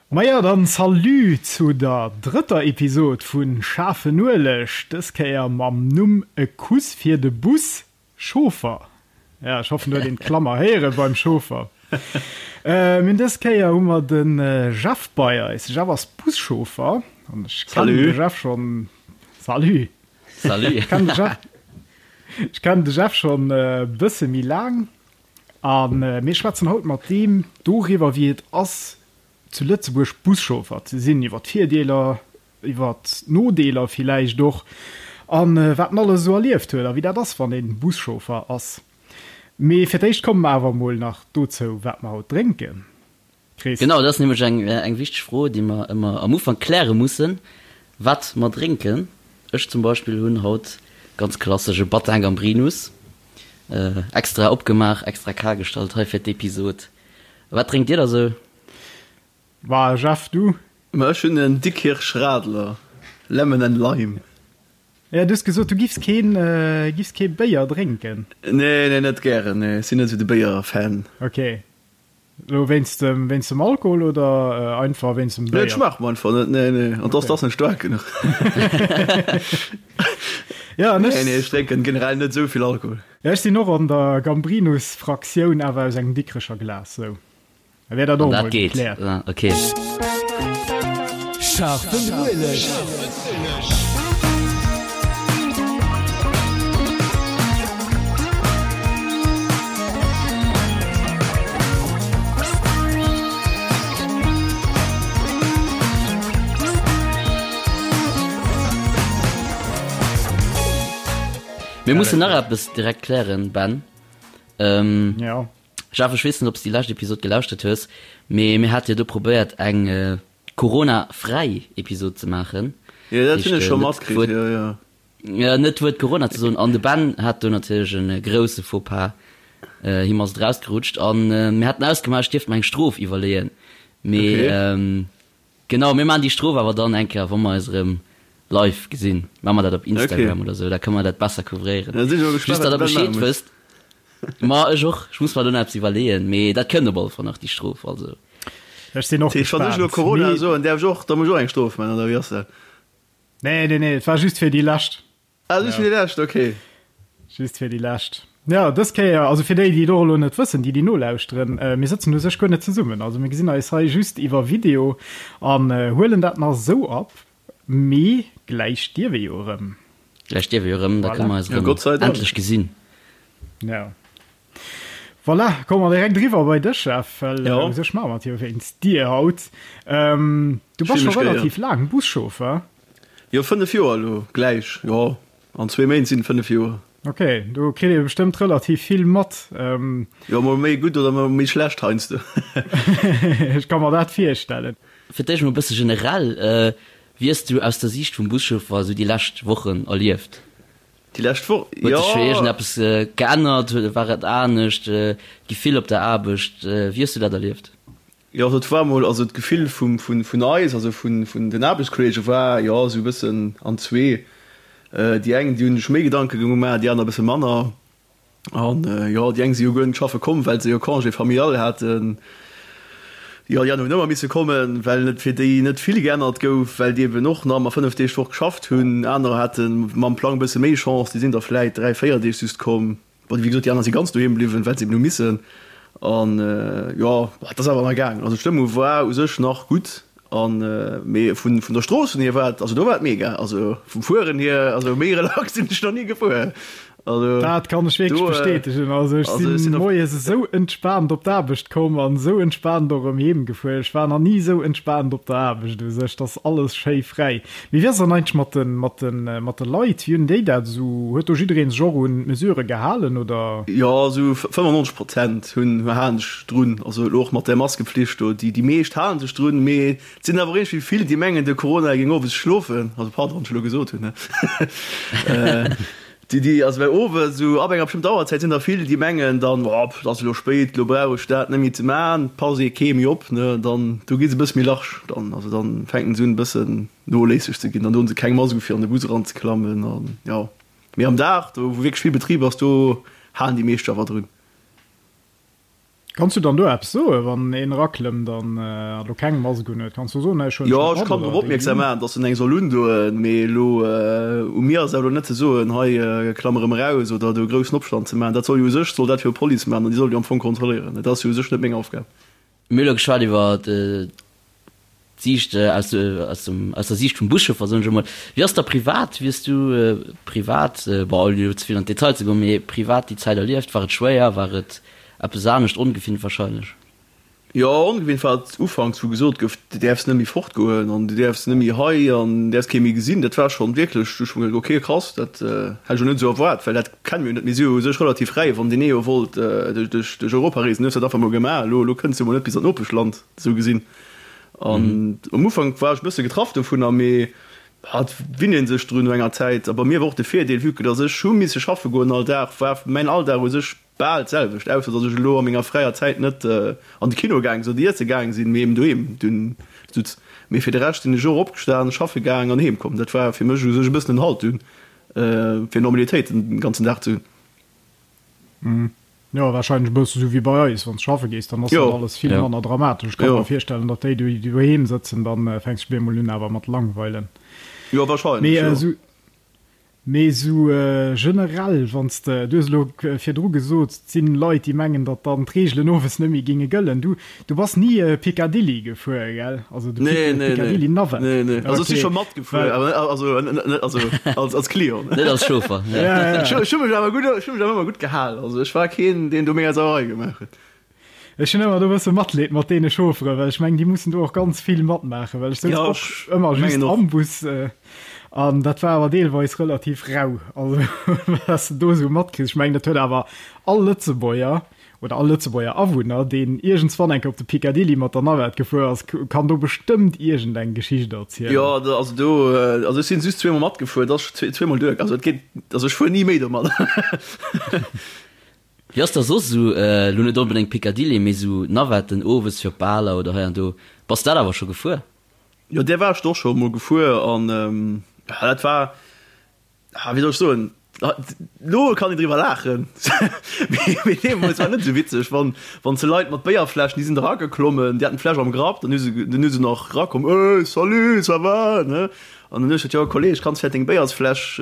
Maja, dann Salut zu der drëtter Episod vu Schaarfen Ueleg, dës Kéier mam Numm E Kuss fir de Bus Chauffer. Ja, ech hoffen, do huet een d'Klammer héiere beim Chauffer. Mir hunn dës Kéier hu mer de Jeff bei eis. De Jeff ass Buschauffer an ech kennen de Jeff schonn. Salut! Salut! Ech kennen de Jeff, ech kennen de Jeff schonn e bësse méi laang a mir schwätzen haut mat deem doriwwer, wéi et ass, zu Lëtzebuerg Buschauffer ze sinn, iwwer d'Virdeeler, iwwer d'Nodeeler villäicht och a wat en alles esou erlieft huet a wéi dat ass, wann ee Buschauffer ass. Mee fir d'éischt komme mer awer emol nach dozou, wat mer haut drénken. Chris? Genau, dat ass nämlech eng, eng wichteg Fro, déi mer ëmmer am Ufank kläre mussen, wat mer drénken. Ech zum Beispill hunn haut ganz klassesch e Battin Gambrinus extra opgemaach, extra kal gestallt hei fir d'Episod. Wat drénkt Dir da sou? Wa Jeff, du? Ma ech hunn en Dikkirch Radler, Lemon and Lime. Ja, du hues gesot, du giffs keen, giffs kee Béier drénken. Nee, nee, net gären, nee. Ech sinn net esou de Béier-Fan. Ok. Elo wéinst dem, wéinst dem Alkohol oder einfach wéinst dem Béier? Nee, et schmaacht mer einfach net, nee, nee. An dass, dass net staark genuch. Ja, an ech. Nee, nee, ech drénken generell net esou vill Alkohol. Ja, ech sinn och an der Gambrinus-Fraktioun, awer aus engem Dikrecher Glas, sou. Da wär dat och emol gekläert. Ah, okay. Scharfen Ueleg. Mir mussen nach eppes direkt klären, Ben. Ähm, ja. Jeff, ech weess net, ob s déi lescht Episod gelauschtert hues, mee mir hate jo do probéiert, eng Corona-fräi Episod ze maachen. Jo, dat hunn ech scho matkritt, jo, jo. Jo, net d'Wuert Corona ze soen. An de Ben hat do natierlech e grousse Faux-pas. Him ass et erausgerutscht. An mir haten ausgemaach, ech dierft mer eng Strof iwwerleeën. Mee Genau, mir maachen déi Strof awer dann eng Kéier, wa mer eis erëm live gesinn. Maache mer dat op Instagram oder esou, da kënne mer dat besser couvréieren. Just, datt der Bescheed wësst. Ma ech och, ech muss mer do nach eppes iwwerleeën, mee dat kënnt op alle Fall nach, déi Strof. Also. Ech sinn och gespaant. Wann ech elo Corona soen, däerf ech och, da muss ech och eng Strof maachen, oder wéi ass dat? Nee, nee, nee, et war just fir déi lescht. Ah, just fir déi lescht, okay. Just fir déi lescht. Jo, dës Kéier, also fir déi, déi et och elo net wëssen, déi, déi nolauschteren, mir sëtzen u sech guer net zesummen. Also mir gesinn eis hei just iwwer Video an huelen dat nach esou op, mee gläich dierf ee jo erëm. Gläich dierf ee jo erëm, da kënne mer eis erëm endlech gesinn. Jo. Voilà, komme mer direkt eriwwer bei dech, Jeff, well u sech maache mer et jo wéinst dir haut. Du bass scho relativ laang Buschauffer. Jo, 5 Joer elo gläich, jo, an zwee Méint sinn et 5 Joer. Ok, do kritt ee bestëmmt relativ vill mat. Jo, mol méi gutt oder mol méi schlecht heiansdo. Ech ka mer dat virstellen. Fir d'éischt mol e bësse generell, Wéi hues du aus der Siicht vum Buschauffer esou déi lescht Wochen erlieft? Déi lescht Woch, jo. Huet sech iergendeppes geännert? War et anescht, d'Gefill op der Aarbecht? Wéi hues du dat erlieft? Jo, also et war mol, also d'Gefill vum, vun, vun eis, also vun, vun den Aarbechtskolleege war, jo, esou e bëssen an zwee. Déi eng, déi hunn sech méi Gedanke gemaach, déi aner e bësse manner. An, jo, déi eng si jo guer net schaffe komm, well se jo Congé familial haten. Jo, déi aner hunn ëmmer misse kommen, well et fir déi net vill geännert gouf, well déi eben och nach ëmmer 5 Deeg d'Woch geschafft hunn. Anerer hate mam Plang e bësse méi Chance, déi sinn da vläit 3, 4 Deeg just komm. Bon, wéi gesot, déi aner si ganz doheem bliwwen, well se eben hu missen. An jo, et ass awer nach gaangen. Also d'Stëmmung war u sech nach gutt. An mee vun vun der Strooss hier war et, also do war et mega. Also vum Fueren hier, also méi relax sinn ech nach ni gefuer. Also dat kann ech wierklech bestätegen. Also ech sinn moies esou entspaant op d'Aarbecht komm an esou entspaant och erëm heem gefuer. Ech war nach ni esou entspaant op der Aarbecht u sech. Et ass alles schéi fräi. Mee wéi ass dann eigentlech mat de, mat de, mat de Leit? Wéi hunn déi dat esou, huet do jiddereen sech och un d'Mesurë gehalen, oder? Jo, esou 95 Prozent hunn, halen sech drun. Also elo och mat där Maskepflicht do, déi, déi meescht halen sech drun, mee et sinn awer och iergendwéi vill, déi mengen, de Corona géing owes schlofen. Also pardon, wann ech elo gesot hunn, ne? Déi, déi, also well owes esou ab enger bestëmmter Auerzäit sinn der vill, déi mengen dann, oh, et ass elo spéit, elo brauch ech dat net méi ze man, passt ee kee méi op, ne, dann do gi se e bësse méi large dann, also dann fänken se un e bëssen noléisseg ze ginn, dann doen se keng Mask u fir an de Bus eranzeklammen an jo. Mee am Dag, do wou wierklech vill Betrib ass, do halen déi meescht awer drun. Kanns du dann do eppes soen, wann een eraklëmmt an elo keng Mask un huet? Kanns du soen, ech huelen Jo, ech kann drop opmierksam maachen, datt en eng soll undoen, mee elo u mir ass et awer elo net ze soen, hei klamm erëm eraus oder do e groussen Opstand ze maachen. Dat soll jo u sech soll dat jo d'Police maachen an déi soll jo am Fong kontrolléieren. Et ass jo u sech net meng Aufgab. Mir hu elo geschwat iwwer d'Siicht aus dem aus der Siicht vum Buschauffer, soen ech emol. Wéi ass da privat? Wéi hues du privat, bon ouni elo ze vill an d'Detail ze goen, mee privat déi Zäit erlieft? War et schwéier? War et eppes anescht, ongewinnt wahrscheinlech? Jo, ongewinnt war et ufanks, wou gesot gouf, du däerfs net méi fortgoen an du däerfs net méi hei an däerfs kee méi gesinn. Dat war schonn wierklech, du hu ech mer geduecht, ok krass, dat hätt ech elo net esou erwaart, well dat kenne mir jo net. Mir si jo u sech relativ fräi, wann deen ee jo wollt duerch Europa reesen, hues dat einfach mol gemaach. Elo elo kënns du mol net bis an d'Nopeschland, esou gesinn. An am Ufank war ech e bësse getraff dovunner, mee et winnt ee sech drun no enger Zäit. A bei mir war och de Virdeel, vue que dass ech hu misse schaffe goen all Dag, war mäin Alldag u sech bal d'selwecht, ausser dass ech elo a menger fräier Zäit net an de Kino gaang sinn oder iesse gaang sinn, mee eben doheem dunn sutz. Mee fir de Rescht sinn ech och opgestan, schaffe gaang an heem komm. Dat war fir mech u sech e bëssen en Halt dunn, fir Normalitéit den ganzen Dag ze hunn. Jo, wahrscheinlech e bësse sou wéi bei eis, wann s schaffe gees, dann ass dat alles vill manner dramatesch. Ech ka mer virstellen, datt déi, déi doheem sëtzen, dann fänks de bemol un awer mat langweilen. Jo, wahrscheinlech, jo. Mee esou generell, wann s de, du hues elo virdru gesot, et sinn Leit, déi mengen, datt dann d'Reegelen owes net méi géinge gëllen. Du, du bass ni Picadilly gefuer, gell? Also de Nee, nee, nee. Picadilly Navette. Nee, nee. Also ech si scho matgefuer, awer also net, also als, als Client. Net als Chauffer. Ja, ja. Ech hu mech awer gutt, ech hu mech awer ëmmer gutt gehal. Also ech war keen, deen do mega Sauerei gemaach huet. Ech hunn ëmmer do e bësse Matleed mat deene Chaufferen, well ech mengen, déi mussen do och ganz vill matmaachen, well ech souz och ëmmer just am Bus an dat war awer deelweis relativ rau, also wat s de do esou matkriss. Ech mengen, dat huet awer all Lëtzebuerger oder all Lëtzebuerger Awunner, deen iergendswann eng Kéier op de Picadilly mat der Navette gefuer ass, kann do bestëmmt iergendeng Geschicht erzielen. Jo, also do, also ech sinn just zweemol matgefuer, dat ass zweemol duer, also et geet, also ech fuer ni méi domadder. Wéi ass da soss esou, elo net onbedéngt Picadilly, mee esou Navetten owes fir op Baler oder hei an do, bass dat awer scho gefuer? Jo, där war ech och scho mol gefuer an dat war, wéi soll ech soen, elo kann een driwwer laachen, mee deemools war net esou witzeg, wann wann se Leit mat Béierfläschen, déi sinn da erageklommen, déi haten d'Fläsch am Grapp, dann hu se dann hu se nach erakomm, Ey, salut, ça va, ne? An dann hu ech gesot, jo Kolleg, kanns vläicht deng Béiersfläsch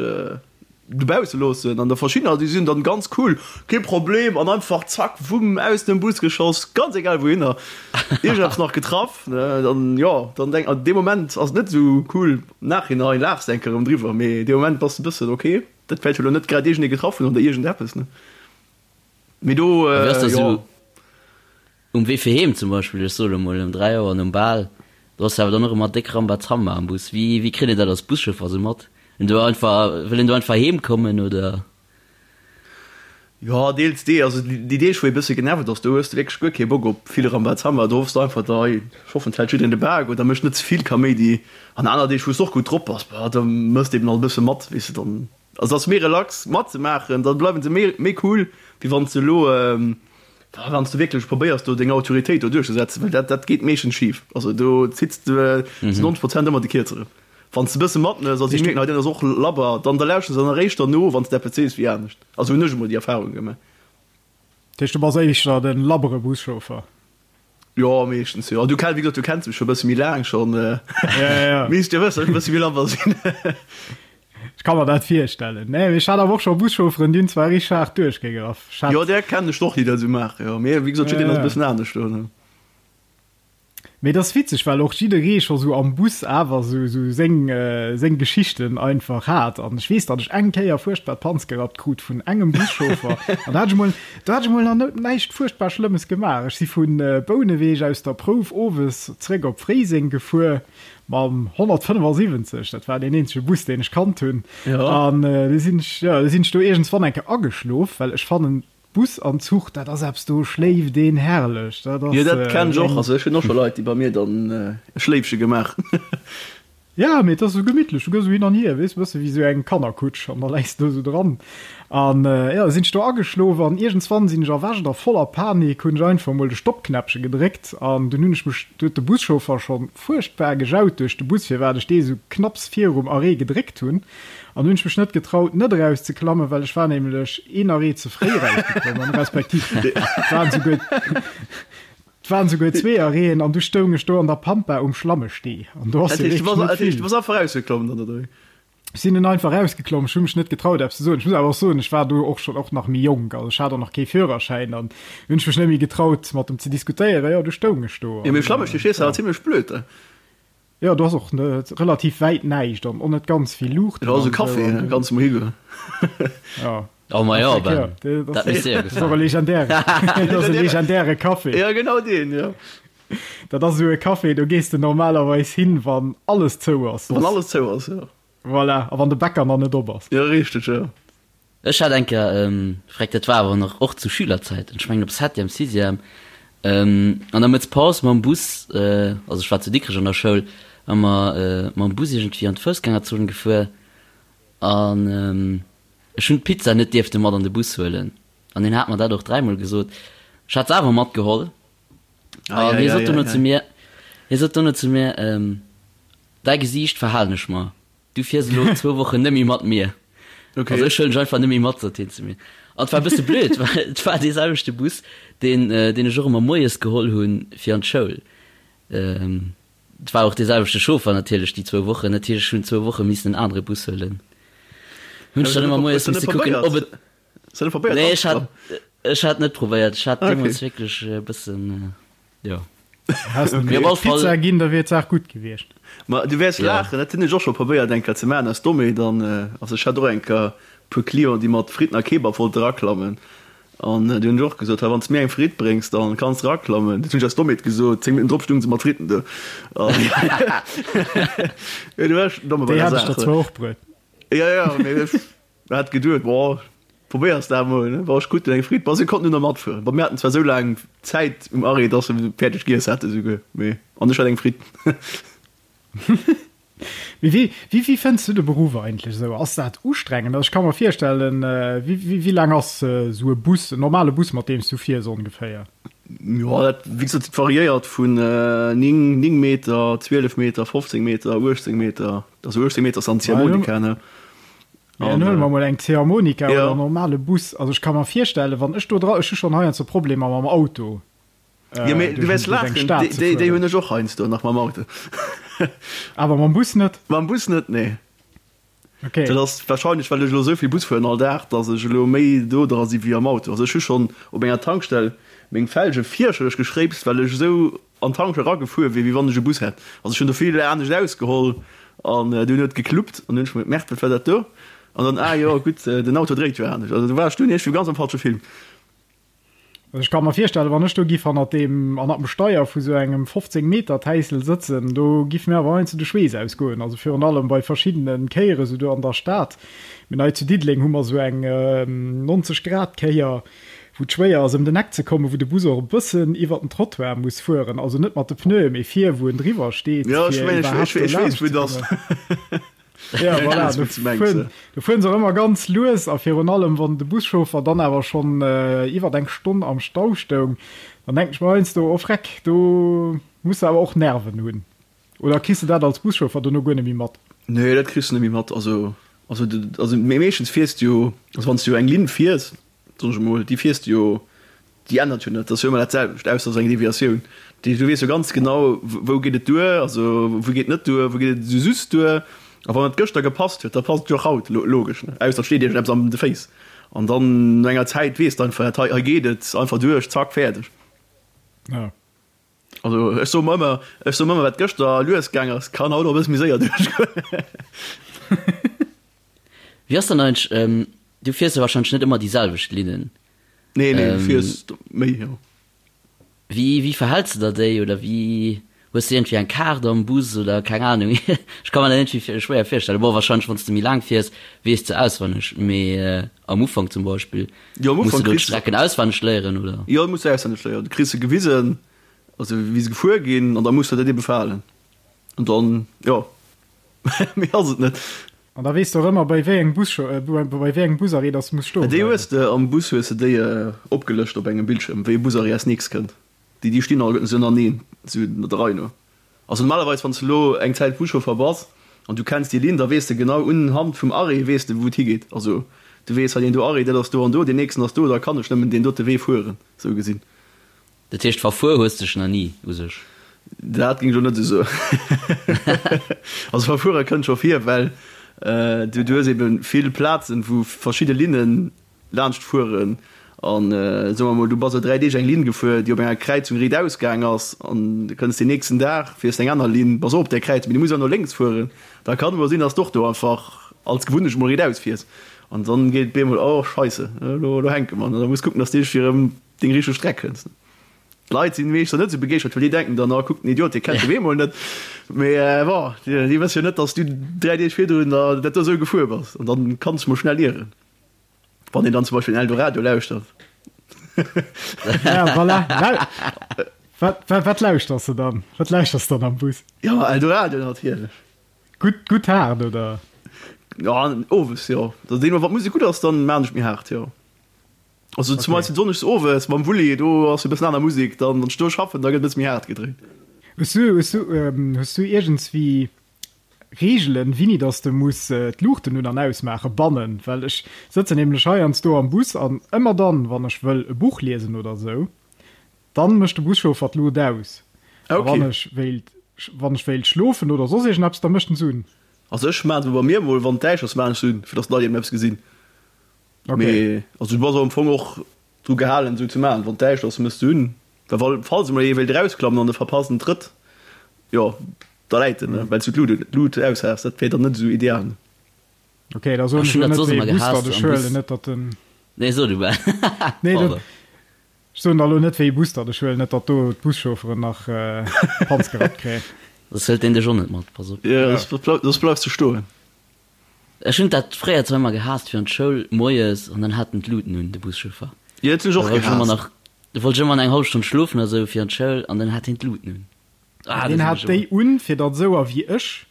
dobausse loossen an der verschiddener déi sinn dann ganz cool, kee Problem an einfach zack wumm aus dem Bus geschoss, ganz egal wouhinner, iergendeppes nach getraff ne, dann jo dann denk an deem Moment ass et net esou cool, am Nachhinein laachs de eng Kéier erëm driwwer, mee dee Moment bass de bëssen ok, dat wäert jo elo net grad iergendee getraff hunn oder iergendeppes ne, mee do jo. Um Wee fir heem zum Beispill, ech soe lo mol ëm 3 Auer nom Bal, do ass jo awer dann och ëmmer déck Rambazamba am Bus. Wéi, wéi kritt een dat als Buschauffer esou mat? Een do einfach, wëll een do einfach heem kommen oder? Jo, deels dee. Also déi Deeg wou ee bësse genervt ass, do hues de wierklech guer kee Bock op vill Rambazamba. Do hoffs de einfach, da hei, ech hoffen et hält jiddereen de Bak oder mécht net ze vill Kaméidi. An aner Deeg wou s de och gutt drop bass, bah da mëss de eben alt e bësse mat, weess de, dann also ass méi relax matzemaachen, da bleiwen se méi méi cool, wéi wann s de elo Wann s de wierklech probéiers do deng Autoritéit do duerchzesetzen, well dat dat geet meeschtens schif. Also do zitts de zu 90 Prozent ëmmer de Kierzeren. Wann s de e bësse matmëss a si mierken, hei deen ass och labber, dann da lauschteren se dann eréischt derno, wann s de eppes sees, wéi anescht. Also hunn ech emol déi Erfarung gemaach. Dat heescht, du bass éischter de labbere Buschauffer? Jo, meeschtens jo. Du kenn, wéi gesot, du kenns mech scho e bësse méi laang schonn. Ja, ja. Misst jo wëssen, datt ech e bësse méi labber sinn. Ech ka mer dat virstellen. Nee, mee ech hat awer och scho Buschaufferen, déi hunn zwar richteg haart duerchgegraff. Ech hat. Jo, där kennen ech och, déi dat esou maachen, jo. Mee wéi gesot, jiddereen ass e bëssen anescht do, ne. Mee et ass witzeg, well och jidderee scho sou am Bus awer sou sou seng seng Geschichten einfach hat. An ech weess, datt ech eng Kéier fuerchtbar d'Panz gerappt krut vun engem Buschauffer. An da hat ech emol, do hat ech emol nach net näischt fuerchtbar Schlëmmes gemaach. Ech si vu Bouneweg aus der Prouf owes zréck op Fréiseng gefuer mam 175, dat war deen eenzege Bus, deen ech kannt hunn. An du sinn ech, jo, du sinn ech do iergendswann eng Kéier ageschlof, well ech fannen, Bus an Zuch, dat ass eppes, do schléift een herrlech. Dat ass. Jo, dat kennen ech och. Also ech hunn och scho Leit, déi bei mir dann e Schléifche gemaach hunn. Ja, mee et ass esou gemittlech, du gëss esou hin an hier, weess, e bësse wéi esou eng Kannerkutsch an da läis de do esou dran. An jo, da sinn ech do ageschlof an iergendswann sinn ech erwächt a voller Panik hunn ech einfach emol de Stoppknäppche gedréckt an dunn hunn ech mech, du huet de Buschauffer scho fuerchtbar gejaut duerch de Bus, firwat ech dee esou knapps virum Arrêt gedréckt hunn. An dunn hunn ech mech net getraut, net erauszeklammen, well ech war nämlech een Arrêt ze fréi erausgeklommen, respektiv et waren esouguer. 't waren souguer zwee Arrêten an du stoung ech do an der Pampa um Schlammestee an do ass jo wierklech net vill. Du bass einfach rausgeklomm dann, oder wéi? Ech sinn dunn einfach rausgeklomm, ech hu mech net getraut eppes ze soen. Ech muss awer och soen, ech war do och schonn och nach méi jonk, also ech hat och nach kee Führerschäin an hunn ech mech net méi getraut mat em ze diskutéieren. Jo, du stoung ech do Jo, mee um Schlammestee stees de awer zimlech blöd da. Jo, do ass och net relativ wäit näischt an och net ganz vill Luuchten. Jo, also Café, da kanns de mol higoen. Ja. Oh ma jo, Ben, dat misst dir jo gefalen. Dat ass och e legendäre, dat ass e legendäre Café. Ja, genau deen, jo. Dat ass esou e Café, do gees de normalerweis hin, wann alles zou ass. Wann alles zou ass, jo. Voilà, a wann de Bäcker nach net op ass. Jo, richteg, jo. Ech hat eng Kéier, freck, dat war awer nach och zu Schülerzäiten, ech mengen op Septième, Sixième, an der Mëttspaus mam Bus, also ech war zu Dikrech an der Schoul, hu mer mam Bus iergendwéi an d'Foussgängerzon gefuer an ech hunn d'Pizza net dierfte mat an de Bus huelen an hien hat mer dat och dräimol gesot. Ech hat se awer matgeholl an hie sot dono zu mir, hie sot dono zu mir, Däi Gesiicht verhalen ech mer. Du fiers elo zwou Wochen net méi mat mir. Okay. Also ech huelen dech einfach net méi mat, sot hien zu mir. An et war e bësse blöd, well et war dee selwechte Bus, deen, deen ech och ëmmer moies geholl hunn fir an d'Schoul. Et war och dee selwechte Chauffer natierlech déi zwou Wochen. Dat heescht, ech hunn zwou Woche missen en anere Bus huelen. Hunn ech dann ëmmer moies misse kucken, ob et. Hues du net probéiert? Nee, ech hat, ech hat net probéiert. Ech hat deemools wierklech e bëssen. Jo. Häss de mir Pizza ginn, da wier d'Saach gutt gewiescht. Ma du wäers laachen, dat hunn ech och scho probéiert eng Kéier ze maachen aus Dommheet. An also ech hat och eng Kéier e puer Clienten, déi mat Fritten a Kebab wollte raklammen. An du hunn ech och gesot, hei wann s de mir eng Fritt bréngs, dann kanns de raklammen. Dat hunn ech aus Dommheet gesot. 10 Minutten drop stounge se mat Fritten do. An jo, du war ech domme bei Déi der hat ech der Saach. zwar och bruet. Jo, jo, mee ech hat geduet, boah, Probéiers dat emol, ne? War ech gutt eng Fritt. Bon, si konnten dunn nach matfueren. Bon, mir haten zwar esou laang Zäit um Arrêt, dass se fäerdeg giess hate souguer, mee an ech hat eng Fritt. Mee wéi, wéi, wéi fënns du de Beruff eigentlech esou? Ass dat ustrengend? Also ech ka mer virstellen, wéi, wéi, wéi laang ass esou e Bus, en normale Bus, mat deem s du fiers ongeféier? Jo, dat, wéi gesot, dat variéiert vun 9, 9 Meter, 12 Meter, 15 Meter, 18 Meter. Also 18 Meter ass dann d'Ziehharmonika, ne? Mee dann huele mer mol eng Ziehharmonika oder en normale Bus. Also ech ka mer virstellen, wann ech do dra, ech hu schonn heiansdo Problemer mam Auto Jo, mee du wäers duerch eng laachen, Stad ze déi, déi fueren. hunn ech och heiansdo nach mam Auto. Awer mam Bus net? Mam Bus net, nee. Okay. Dat ass warscheinlech, well ech elo esou vill Bus fueren all Dag, datt ech elo méi do dra si wéi am Auto. Also ech hu schonn op enger Tankstell meng Felge fierchterlech geschréipst, well ech esou an d'Tankstell eragefuer wier, wéi wann ech e Bus hätt. Also ech hunn do vill anescht ausgeholl an dunn huet et gekluppt an dunn hunn ech mer gemerkt, wat war dat do? An dann, ah jo, gutt, den Auto dréit jo anescht. Also do war ech dunn iergendwéi ganz am falsche Film. Also ech ka mer virstellen, wann ech do giff hannert deem, hannert dem Steier vu sou engem 15 Meter Täissel sëtzen, do giff mir awer heiansdo de Schweess ausgoen. Also virun allem bei verschiddene Kéiere sou do an der Stad. Mir hei zu Diddeleng hu mer sou eng 90 Grad Kéier, wou et schwéier ass ëm den Eck ze kommen, wou de Bus och e bëssen iwwer den Trottoir muss fueren, also net mat de Pneuen, mee vir, wou en driwwer steet, Jo, ech fir mengen, ech, iwwerhaapt ech, do ech weess, laanscht wou ze et ass. kommen. Ja, Ech voilà, weess, do wou s de mengs, fueren, ja. do fueren se och ëmmer ganz lues a virun allem, wann de Buschauffer dann awer schonn iwwer eng Stonn am Stau stoung, dann denken ech mer heiansdo, oh Freck, do muss de awer och Nerven hunn. Oder kriss de dat als Buschauffer dono guer net méi mat? Nee, dat kriss de net méi mat. Also, also, also mee meeschtens fiers de jo, also wann s de jo eng Linn fiers, soen ech emol, déi fiers de jo, déi ännert jo net, dat ass jo ëmmer dat selwecht, ausser et ass eng Deviatioun. Dat heescht, du weess jo ganz genau, wou geet et duer, also wou geet et net duer, wou geet et esou just duer. A wann et gëschter gepasst huet, da passt et jo och haut, logesch, ne? Ausser et steet iergendeppes an de Féiss. An dann no enger Zäit weess de einfach, hei, hei geet et einfach duerch, zack, fäerdeg. Ja. Also ech soe mer ëmmer, ech soe mer ëmmer, wat gëschter lues gaang ass, kann haut och e bësse méi séier duerchgoen. Wéi ass dann eigentlech, du fiers jo wahrscheinlech net ëmmer déi selwecht Linnen? Nee, nee, du fiers méi, jo. Wéi, wéi verhälls de der déi oder wéi, hues de iergendwéi eng Kaart am Bus oder keng Ahnung? Ech ka mer dat iergendwéi schwéier virstellen. Bon, wahrscheinlech wann s de méi laang fiers, weess de auswenneg, mee am Ufank zum Beispill. Jo, am Muss Ufank du do kriss de. d'Strecken auswenneg léieren, oder? Jo, muss du auswenneg léieren. Du kriss se gewisen, also wéi se gefuer ginn, an da muss de dat ebe verhalen. An dann, jo. Méi ass et net. An da weess de och ëmmer, bei wéi engem Bus, bei wéi engem Busarrêt dass de muss stoe Déi hues de am Bus hues de déi opgelëscht op engem Bildschirm, wéi e Busarrêt als nächst kënnt. Déi déi stinn alleguerten esou ënnerteneen, esou der Rei no. Also normalerweis wann s de elo eng Zäit Buschauffer bass an du kenns déi Linn, da weess de genau unhand vum Arrêt weess de wou et higeet. Also du weess, hei deen do Arrêt, dat ass do an do, deen nächsten ass do, da kann ech nëmmen deen dote Wee fueren, esou gesinn. Dat heescht verfuer hues dech nach ni u sech? Dat géing ech elo net esou soen. Also verfuere kënnt scho vir, well du hues ebe vill Plazen, wou verschidde Linne laanscht fueren. An soe mer mol, du bass elo 3 Deeg eng Linn gefuer, déi op enger Kräizung riitaus gaang ass, an du kënns deen nächsten Dag, fiers eng aner Linn, bass och op där Kräizung, mee du muss awer no lénks fueren. Da kann emol sinn, datt s de och do einfach als Gewunnecht mol riitaus fiers. An dann geet et bemol, oh Scheisse, elo hänke mer. An da muss kucken, datt s de iergendwéi erëm deng richteg Streck kënns. D'Leit sinn meeschter net esou begeeschtert, well déi denken dann, oh kuck den Idiot, dee kennt de Wee mol net. Mee bon, déi wësse jo net, datt s du 3 Deeg virdrun dat do esou gefuer bass. An dann kanns de mol schnell ieren, wann een dann zum Beispill den Eldoradio lauschtert. Ja, voilà. Wat, wat, wat lauschters de dann? Wat lauschters de dann am Bus? Ja, Eldoradio natierlech. Gutt, gutt haart, oder? Ja, owes, jo. Also deemno, wann d'Musek gutt ass, dann maan ech méi haart, jo. Also zum Beispill sonndegs owes mam Wulli, do ass e bëssen aner Musek, dann wann ech do schaffen, da gëtt e bësse méi haart gedréint. Hues du, hues du, hues du iergendswéi Reegelen, wéini dass de muss d'Luuchten un an ausmaache bannen? Well ech sëtzen nämlech heiansdo am Bus an ëmmer dann, wann ech wëll e Buch liesen oder sou, dann mécht de Buschauffer d'Luucht aus. A wann ech wéilt, wann ech wéilt schlofen oder soss iergendeppes, da mécht en se un. Also ech maachen se bei mir mol, wann et däischter ass, maachen ech se un, fir dass d'Leit eben eppes gesinn. Okay. Mee also du bass am Fong och dru gehalen esou ze maachen, wann d'Däischt ass, mëss de un, well wa falls emol ee wéilt erausklammen an e verpasst en Trëtt, jo da läit en, ne, well s du d'Lut d'Lut aus has, dat wär dann net esou ideal. Ne. Okay, da soen Ech ech hunn elo dat net soss wéi ëmmer ee Bus gehaasst datt ech am Bus. huelen, net datt den. Nee, so du bal. Nee, dat Pardon. ech soen da elo net wéi ee Bus datt ech huelen, net datt do d'Buschaufferen nach d'Panz gerappt kréien. Soss hëlt deen dech och net mat, pass op. Jo, soss bleifs de stoen. Ech hunn dat fréier zwar ëmmer gehaasst fir an d'Schoul moies an dann hat en d'Luten un, de Buschauffer. Jo, dat hunn ech Da och wollt ech ëmmer gehaasst. nach, da wollt ech ëmmer eng hallef Stonn schlofen oder sou fir an d'Schoul an dann hat hien d'Luten un. Ah, dat Deen hunn hat ech déi ëmmer. un, fir datt esouer wéi ech,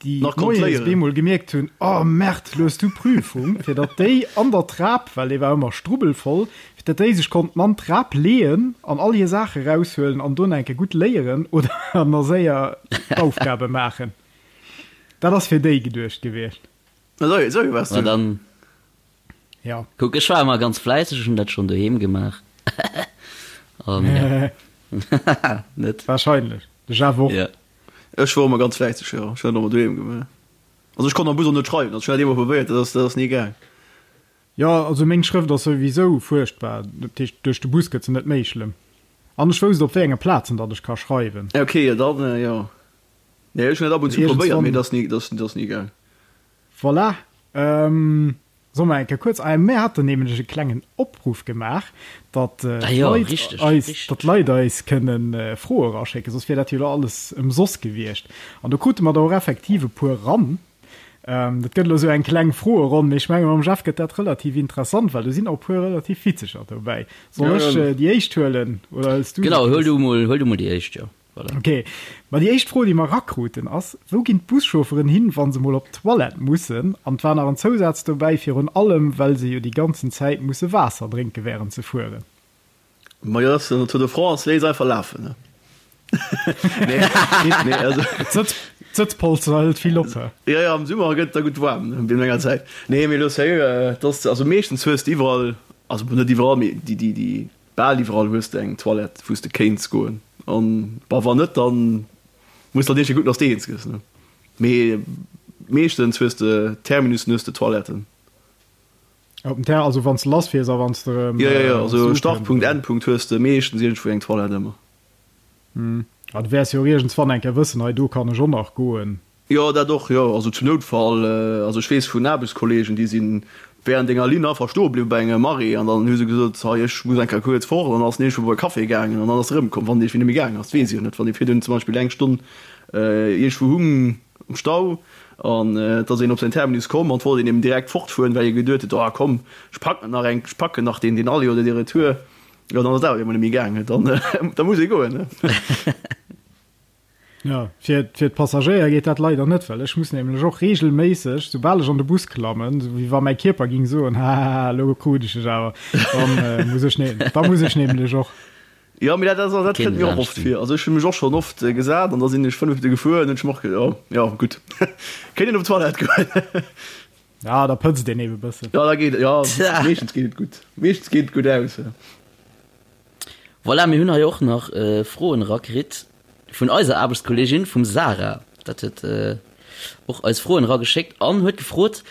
déi Nach konnt moies léieren. bemol gemierkt hunn, oh Merde, lo hues du Prüfung, fir datt déi an der Trap, well dee war ëmmer strubbelvoll, fir datt déi sech konnten an d'Trap leeën an all hir Saache raushuelen an do nach eng Kéier gutt léieren oder nach séier d'Aufgabe maachen. Dat ass fir déi geduecht gewiescht. Esou, esou waars Ma du. dann, Ja. kuck, ech war ëmmer ganz fläisseg, ech hunn dat schonn doheem gemaach. An ja. Net? Wahrscheinlech. De Jeff och. Ja. Ech wor ëmmer ganz fläisseg, jo. Ech hunn dat ëmmer doheem gemaach. Also ech konnt am Bus och net schreiwen, also ech hunn dat eemol probéiert, dat ass, dat ass ni gaang. Jo, also meng Schrëft ass souwisou fuerchtbar, dat heescht duerch de Bus gëtt se net méi schlëmm. An ech wousst op wéi enge Plazen datt ech ka schreiwen. Ok, jo dann, jo. Nee, ech hunn dat ab und zu probéiert, mee dat ass ni, dat ass, dat ass ni gaang. Voilà. Solle mer eng Kéier kuerz, ah, mir haten nämlech e klengen Opruff gemaach, datt Ah jo, d'Leit richteg, eis, richteg. datt d'Leit eis kënnen Froe eraschécken, soss wier dat jo elo alles ëmsoss gewiescht. An do krute mer der och effektiv e puer eran. Dat gëtt elo esou eng kleng Froeronn, mee ech menge mam Jeff gëtt dat relativ interessant, well do sinn och e puer relativ witzeger dobäi. Soll ech déi éischt huelen oder hëls du se, Genau, huel Chris? du mol, huel du mol déi éischt, jo. Voilà. Ok, ma déi éischt Fro, déi mer erakruten, ass, Wou ginn d'Buschaufferen hin, wa se mol op d'Toilette mussen? An et war nach en Zousaz dobäi, Virun allem, well se jo déi ganzen Zäit musse Waasser drénke wärend se fueren. Ma jo, den Tour de France léisst einfach lafen, ne? Nee, nee, also. D'Sëtzpolster hëlt vill op, he? Jo, jo, am Summer gëtt et da gutt waarm, ne, wéinst enger Zäit. Nee, mee elo sérieux, et ass, also meeschtens hues de iwwerall, also bon, net iwwerall, mee déi, déi, déi, Bal iwwerall hues de eng Toilette wous de kéints goen an bah wann net dann muss de halt iergendwéi kucken dass de eens gëss ne. Mee meeschtens hues de Terminussen hues de Toiletten. Op dem Ter also wanns de lass fiers a wanns de erëm Jo jo jo also ukënns Startpunkt oder? Endpunkt hues de meeschtens iergendwou eng Toilette ëmmer. Ah du wäers jo och iergendswann eng Kéier wëssen hei do kann ech och nach goen. Jo, dat och, jo. Also zum Noutfall, also ech weess vun Aarbechtskollegen, déi si während enger Linn einfach stoe bliwwen bei engem Arrêt an dann hu se gesot, hei ech muss eng Kéier kuerz fort an dann ass en iergendwou bei e Café gaangen an dann ass e erëmkomm. Wann dee net méi gaangen ass, dat weess ech jo net. Wann ee virdrun zum Beispill eng Stonn iergendwou hung am Stau an et ass een op säin Terminus komm an et wollt een eben direkt fortfueren, well ee geduet huet, oh komm, ech packen nach eng, ech packen nach deen, deen Aller oder dee Retour, jo dann ass et awer iergendwann net méi gaangen, dann da muss ee goen, ne. Jo, fir fir d'Passagéier geet dat leider net, well ech muss nämlech och reegelméisseg, soubal ech an de Bus klammen, sou wéi wa mäi Kierper ging soen, Hahaha, elo krut ech dech awer, dann muss ech ne da muss ech nämlech och. Jo, mee dat ass, dat kënnt mir och oft vir. Also ech hu mech och schonn oft gesat an da sinn ech 5 Minutte gefuer an hunn ech mer och geduet, oh jo, gutt, kéint een op d'Toilette goen. Ja, da pëtzt een eben e bëssen. Jo, da geet et, jo, meeschtens geet et gutt, meeschtens geet et gutt aus. Voilà, mir hunn hei och nach Froen erakritt vun eiser Aarbechtskolleegin, vum Sarah. Dat huet och eis Froen erageschéckt an huet gefrot,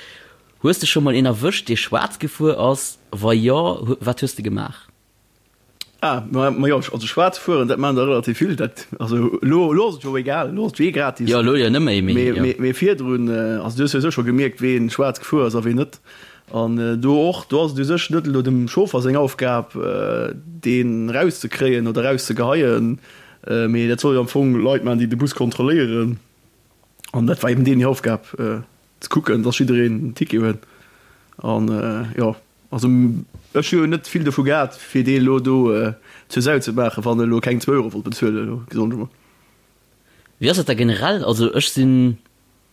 Hues de scho mol een erwëscht, dee schwaarz gefuer ass? Wa jo, wat hues de gemaach? Ah, ma, ma jo, also schwaarz fueren, dat maachen der relativ vill. Dat, also elo, elo ass et jo egal, elo ass et jo eh gratis. Jo, elo jo net méi, mee jo. Mee, mee virdrun, also du hues souwisou scho gemierkt, ween schwaarz gefuer ass a ween net. An do och, do ass et u sech net elo dem Chauffer seng Aufgab, deen erauszekréien oder erauszegeheien, mee dat soll jo am Fong Leit maachen, déi de Bus kontrolléieren. An dat war eben deenen hir Aufgab, ze kucken, dass jiddereen en Ticket huet. An jo, also ech hu jo net vill dovu gehat, fir dee elo do zur Sau ze maachen, wann e elo keng zwou Euro wollt bezuelen, elo gesot ech emol. Wéi ass dat da generell? Also ech sinn,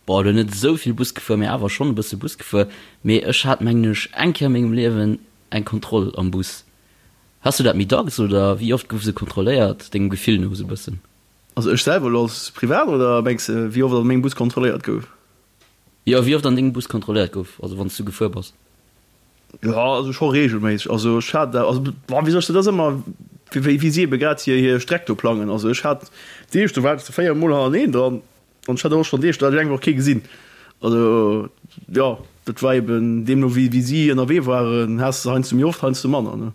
bon, elo net esou vill Bus gefuer, mee awer schonn e bësse Bus gefuer. Mee ech hat, mengen ech, eng Kéier a mengem Liewen eng Kontroll am Bus. Has du dat méi dacks oder wéi oft gouf se kontrolléiert, dengem Gefill no esou e bëssen? Also ech selwer elo als Privat oder mengs de wéi oft an mengem Bus kontrolléiert gouf? Jo, wéi oft an dengem Bus kontrolléiert gouf, also wann s du gefuer bass. Jo, also scho regelméisseg. Also ech hat, also bon, wéi soll ech dat, ass ëmmer wéi wéi si ebe grad hir hir Streck do plangen. Also ech hat Deeg, do war ech 4 mol hannerteneen dran an ech hat och schonn Deeg, do hat ech eng Woch kee gesinn. Also jo, dat war eben deemno wéi wéi si ënnerwee waren, has de heiansdo méi oft, heiansdo manner, ne.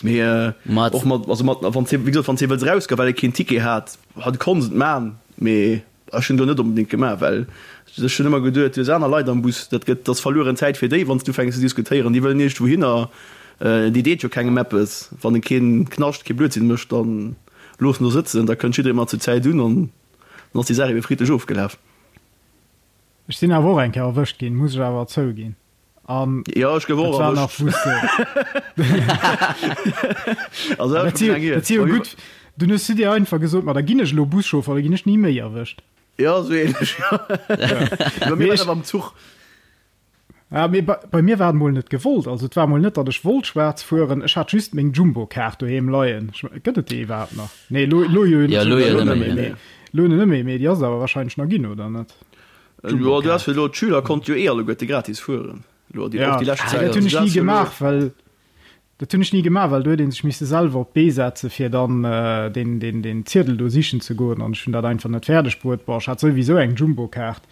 Mee och mat, also mat, wann wéi gesot, wann s de wëlls erausgoen, well e keen Ticket hat, hat konns et man, mee ech hunn do net onbedéngt gemaach, well ech hunn ëmmer geduet, du hues aner Leit am Bus, dat gëtt, dat ass verlueren Zäit fir déi, wann s du ufänks ze diskutéieren, déi wëllen iergendwou hinner, déi deet jo kengem eppes, wann e keen Knascht, kee Blödsinn mécht, dann looss en do sëtzen, da kënnt jidderee mat zur Zäit un an dann ass déi Saach ebe friddlech ofgelaf. Ech sinn awer och eng Kéier erwëscht ginn, muss ech awer zouginn. An ja, ech gouf och erwëscht. Also, dat si dat si jo gutt. Dunn hues du dir einfach gesot, ma da ginn ech elo Buschauffer, da ginn ech ni méi erwëscht. Ja, sou ähnlech, ja. Bei mir war dat am Zuch. Ja, mee bei, bei mir war et mol net gewollt. Also et war mol net, datt ech wollt schwaarz fueren. Ech hat just meng Jumbo-Kaart doheem leien. Gëtt et déi iwwerhaapt nach? Nee, lo, lo jo ja, lo jo net méi. Nee. Lo net méi, mee déi ass et awer wahrscheinlech nach ginn, oder net? Jo, du has fir elo, d'Schüler konnte jo eh alleguerte gratis fueren, elo déi, och déi lescht Zäit. Dat hunn ech ni gemaach, well, dat hunn ech ni gemaach, well do huet ee sech misse selwer op d'Bee setze fir dann deen, deen, deen Ziedel do sichen ze goen an ech hunn dat einfach net fäerdeg bruet. Bon, ech hat souwisou eng Jumbo-Kaart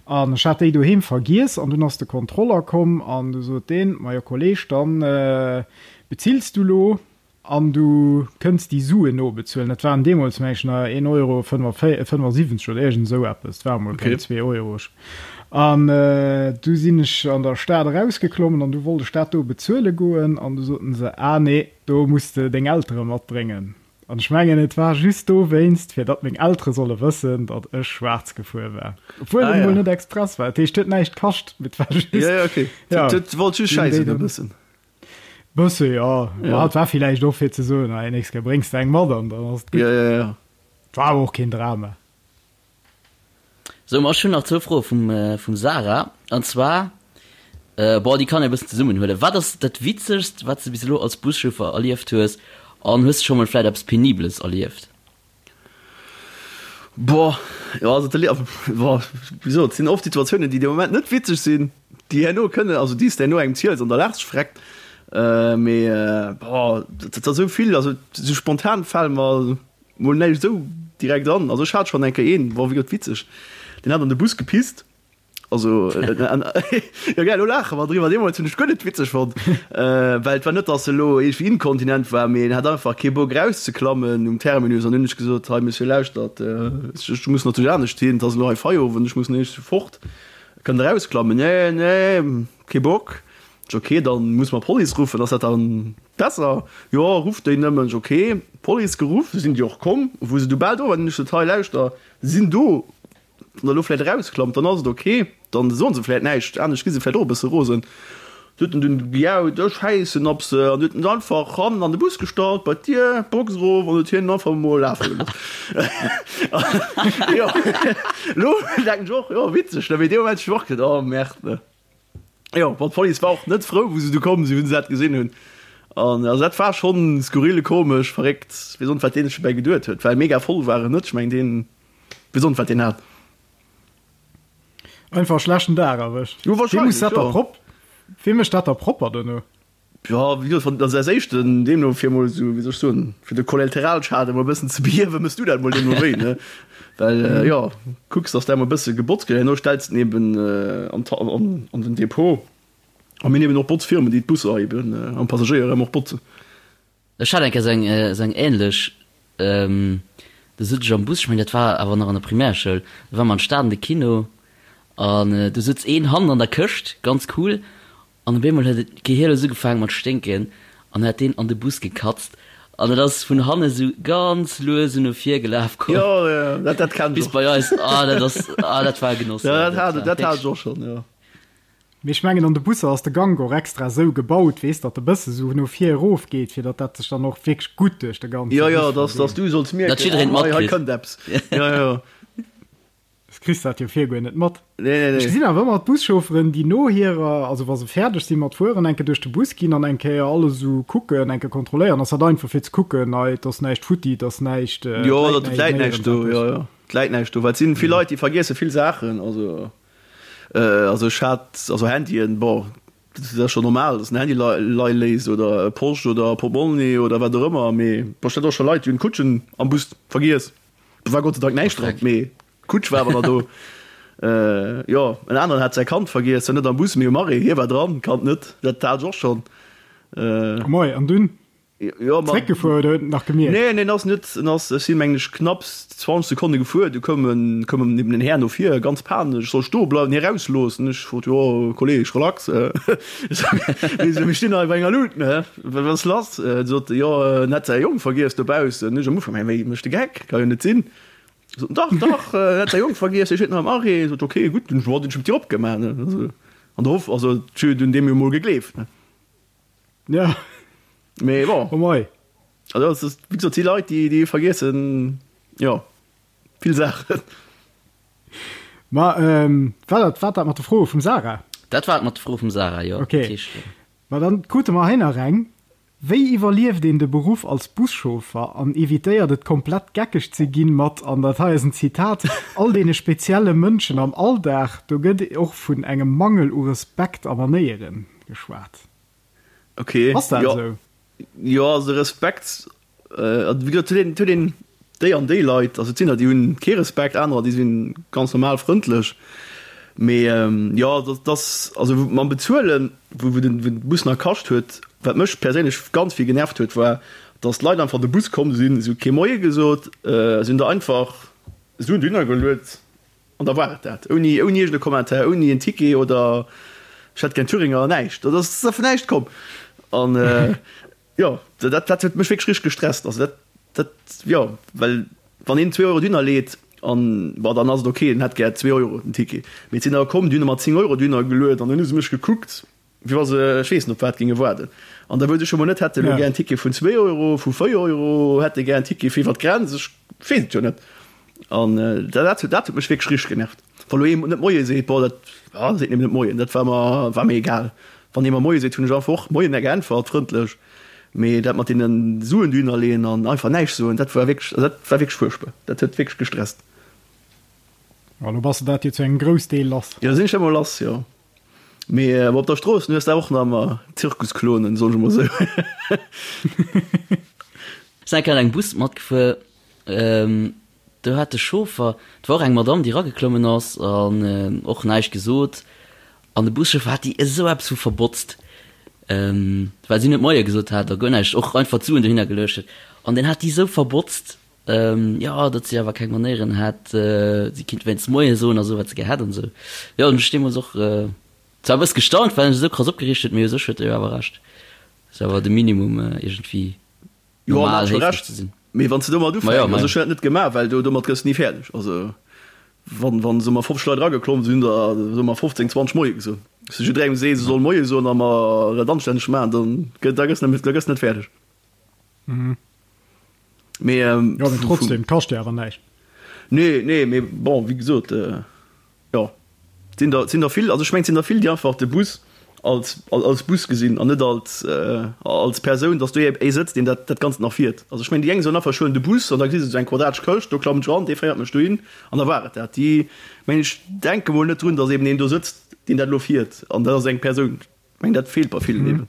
an ech hat déi doheem vergiess an dunn ass de Kontroller komm an du sot deen, Majo Kolleg, dann bezills du lo. An du kënns déi Suen nobezuelen. Dat waren deemools, meng ech, nach een Euro 75 oder iergend esou eppes. Dat war emol keng 2 Euro. An du sinn ech an der Stad erausgeklommen an du wollt ech dat do bezuele goen an du soten se, Ah nee, do muss de deng Eltere matbréngen. An ech mengen, et war just dowéinst, fir datt meng Eltere solle wëssen, datt ech schwaarz gefuer war. Obwuel et emol net express war. Dat heescht, et huet näischt kascht, mee et war just. Ja, ja, okay. Ja. Et wollt just schäissen e bëssen. Bësse jo, ja. Et war villäicht och fir ze soen, hei nächst Kéier bréngs de eng mat an dann ass et gutt. Ja, ja, ja. Et war awer och keen Drama. Sou, ma ech hunn nach zwou Froe vum, vum Sarah. An zwar, bon, déi kann ee bëssen zesummenhuelen. Wat ass dat Witzegst, wat s de bis elo als Buschauffer erlieft hues? An hues de scho mol vläit eppes Penibeles erlieft? Boah, jo, also de, boah, wéi gesot, et sinn oft Situatiounen, déi de Moment net witzeg sinn, déi herno kënnen, also déi s de herno engem ziels an da laachs de vreckt. Mee boah, dat ass esou vill, also esou spontan fale mer mol näischt esou direkt an. Also ech hat schonn eng Kéier een, boah, wéi gesot, witzeg, deen hat an de Bus gepisst. Also, jo gell, elo laache mer driwwer, deemools hunn ech guer net witzeg fonnt, well et war net, datt e elo iergendwéi inkontinent war, mee en hat einfach kee Bock erauszeklammen um Terminus. An hunn ech gesot, hei Monsieur, lauschtert, ech muss natierlech anescht hin, et ass elo hei Feierowend, ech muss nämlech fort, kënnt Der erausklammen? Nee, nee, kee Bock. Ech, ok, dann muss mer d'Police ruffen, ass dat dann besser? Jo, rufft déi nëmmen. Ech, ok, Police geruff, sinn déi och komm. Wou se du bal do waren, hunn ech gesot, hei lauschter, se sinn do, Wann der elo vläit erausklammt, dann ass et ok, dann soen se vläit näischt, anescht gi se vläit och e bësse rosen. Du huet en dunn gejaut, ech schäissen op se, an huet en se einfach hannen an de Bus gestallt, bei d'Dier, d'Box erof, an huet hien einfach emol lafe gelooss. Jo, elo denken ech och, jo, witzeg, ne, mee dee Moment hu ech och geduet, oh merde, ne. Jo, bon, d'Police war och net frou, wou se du komm sinn, wou se dat gesinn hunn. An also dat war schonn skurril, komesch, verréckt, weess och net, wat deen sech dobäi geduet huet, well mega voll war en net, ech mengen deen, weess och net, wat deen hat. Einfach schlechten Dag erwëscht. Jo, Wee muss wahrscheinlech, dat da jo. prop Wee mécht dat da propper dono? Jo, wéi gesot, wann als éischten deemno fir emol esou, wéi soll ech soen, fir de Kollateralschaden emol e bëssen ze behiewen, méchs du dat emol deemno wéi, ne? Well, jo, kucks, dass dat emol e bësse gebotzt gëtt, herno stells de en eben an d'Ha an an den Depot. A mir hunn eben och Botzfirmen, déi d'Busser eben an d'Passagéier erëm och botzen. Ech hat eng Kéier esou eng ähnlech, do sot ech am Bus, ech mengen dat war awer nach an der Primärschoul, do ware mer an d'Stad an de Kino an do sutz een hannen an der Këscht, ganz cool, an op eemol huet et gehierlos ugefaangen mat sténken an huet deen an de Bus gekatzt an et ass vun hanne sou ganz lues esou no vir gelaf komm Jo, jo, dat, dat kenn ech bis och. bei eis. Ah dat ass, ah dat war e Genoss, Jo, dat dat hat, war dat hat wierklech. ech och schonn, jo. Mee ech mengen an de Busser ass de Gank och extra sou gebaut, weess, datt e bësse sou no vir erof geet, fir datt dat sech dann och wierklech gutt duerch de ganze Jo, jo, Bus dass, dass verdeelt. du solls Datt mierken, jiddereen ah, hei, hei matkritt. kënnt eppes. Jo, jo. Das kriss dat jo vir guer net mat. Nee, nee, Ech nee. gesinn awer ëmmer d'Buschaufferen, déi no hirer, also wa se fäerdeg si mat fueren, eng Kéier duerch de Bus ginn an eng Kéier alles esou kucken, eng Kéier kontrolléieren. Ass dat einfach fir ze kucken, hei, et ass näischt futti, et ass näischt, et Jo, läit datt et näischt läit näischt néierens do, eppes. jo, jo, et läit näischt do, well et sinn vill Leit, déi vergiesse vill Saachen, also. Also ech hat, also Handyen, bon, dat ass scho normal, datt en Handy lei léisst oder e Posch oder e Portmonni oder wat och ëmmer, mee bon, ech hat och scho Leit, déi hunn d'Kutschen am Bus vergiess. Do war Gott sei Dank näischt dran, mee d'Kutsch war awer nach do. Jo, en aneren hat säi Kand vergiess, zwar net am Bus, mee um Arrêt, hie war dran, d'Kand net. Dat hat ech och schonn. Moie, an dunn? Jo, ma. Zréckgefuer oder huet en nach gemierkt? Nee, nee, en ass net, en ass, ech sinn, mengen ech, knapps 20 Sekonne gefuer, du koum en, koum en eben en Här no vir, ganz panesch, ech soll stoe bleiwen, hie rausloossen. Ech frot, jo, Kolleg, relax, mir stinn hei bei enger Luut, ne, wat ass lass? En sot, jo, en hätt säi Jong vergiess dobaussen. Ech am Ufank, mä wéi, mécht de Geck, ka jo net sinn. Sot en, dach, dach, en hätt säi Jong vergiess, hie steet nach am Arrêt. Sot, ok, gutt, dunn hunn ech d'Dier opgemaach, ne, also an der Hoff, also ech hunn deem jo mol gegleeft, ne. Ja. Mee bon. Oh mei. Also das ist, wie gesagt, die Leit, déi, déi vergiessen, jo, vill Saachen. Ma ähm, war dat, war dat mat de Froe vum Sarah? Dat war et mat de Froe vum Sarah, jo. Okay. Dat heescht, Ma dann krute mer hei nach eng. Wéi iwwerlieft een de Beruff als Buschauffer an evitéiert et komplett geckeg ze ginn mat, an dat hei ass en Zitat, all deene spezielle Mënschen am Alldag? Do gëtt och vun engem Mangel u Respekt a Manéieren geschwat. Okay. Ass dat jo. esou? Jo, also Respekt, äh, wéi gesot, huet een, huet een déi an déi Leit, also et sinn der, déi hunn kee Respekt, anerer, déi sinn ganz normal frëndlech. Mee ähm, jo, dat, dat ass, also mam Bezuelen, wou, wou den, wou den Bus nach kascht huet, wat mech perséinlech ganz vill genervt huet, war, dass d'Leit einfach an de Bus komm sinn, se hu kee Moie gesot, äh, se hunn der einfach Suen dohinner geluet. An da war et dat. Ouni, ouni iergend e Commentaire, ouni en Ticket oder ech hätt gär Thüringer, näischt. Dat ass vun näischt komm. An jo, dat, dat huet mech wierklech richteg gestresst. Also dat, dat, jo, well wann een zwee Euro dohinner leet an, bon, dann ass et ok, en hätt gär zwee Euro den Ticket. Mee et sinn der komm, déi hunn ëmmer 10 Euro dohinner geluet an dunn hu se mech gekuckt, Wéi wa se, ech weess net, op wat géinge waarden. An da wou se scho mol net, hätte elo gär en Ticket vun zwee Euro, vu véier Euro, hätte gär en Ticket fir iwwer d'Grenz, ech weess et jo net. An dat, dat huet mech wierklech richteg genervt. Wa lo ee net Moie seet, bon, dat, ah, seet nëmmen net Moien, dat war mer, war mir egal. Wann ee mer Moie seet, hunn ech einfach och Moien geäntwert, frëndlech. Mee dat mat deene Suen dohinner leeën an einfach näischt soen, dat war wierklech, also dat war wierklech fuerchtbar. Dat huet wierklech gestresst. Ma lo bass de dat jo zu engem Groussdeel lass. Jo, sinn ech ëmmer lass, jo. Mee op der Strooss hues de och nach ëmmer Zirkusklonen, soen ech emol esou. Ech sinn eng Kéier an engem Bus matgefuer, do hat de Chauffer, et war och eng Madamm, déi erageklommen ass an och näischt gesot, an de Buschauffer hat déi esou eppes vu verbotzt, well si net Moie gesot hat a guer näischt, och einfach d'Suen dohinner geluecht huet, an deen hat déi esou verbotzt, jo, datt si awer keng Manéieren hätt, si kinnt wéinst Moie soen a sou, wat se gär hätt an esou. Jo, hunn ech deemools och zwar e bësse gestaunt, well en sech esou krass opgereegt huet, mee u sech huet e jo awer Recht. Ass awer de Minimum iergendwéi Jo, en normal hat scho héiflech Recht, ze sinn. mee wann s de domat Ma jo, ufänks, ma also jo. ech hunn dat net gemaach, well do domat gëss de ni fäerdeg. Also wann, wann soe mer 50 Leit erageklomm sinn, da soe mer 15, 20 Moie gesot. S du jidderengem sees, e soll Moie soen a mer dat anstänneg maachen, dann gëtt, da gëss net, da gëss net fäerdeg. Mee, Jo, mee trotzdem, kascht jo awer näischt. Nee, nee, mee bon, wéi gesot, jo, et sinn der, et sinn der vill, also ech mengen, et sinn der vill, déi einfach de Bus als, als Bus gesinn an net als, als Persoun, dass do ee sëtzt, deen dat, dat Ganzt nach fiert. Also ech mengen, déi eng soen einfach, ech huelen de Bus an da gesi se esou eng quadratesch Këscht, do klammen ech eran, dee féiert mech dohin an da war et dat. Déi, mengen ech, denke mol net drun, dass eben een do sëtzt, deen dat elo fiert an dat ass eng Persoun. Ech mengen, dat feelt bei villen eben.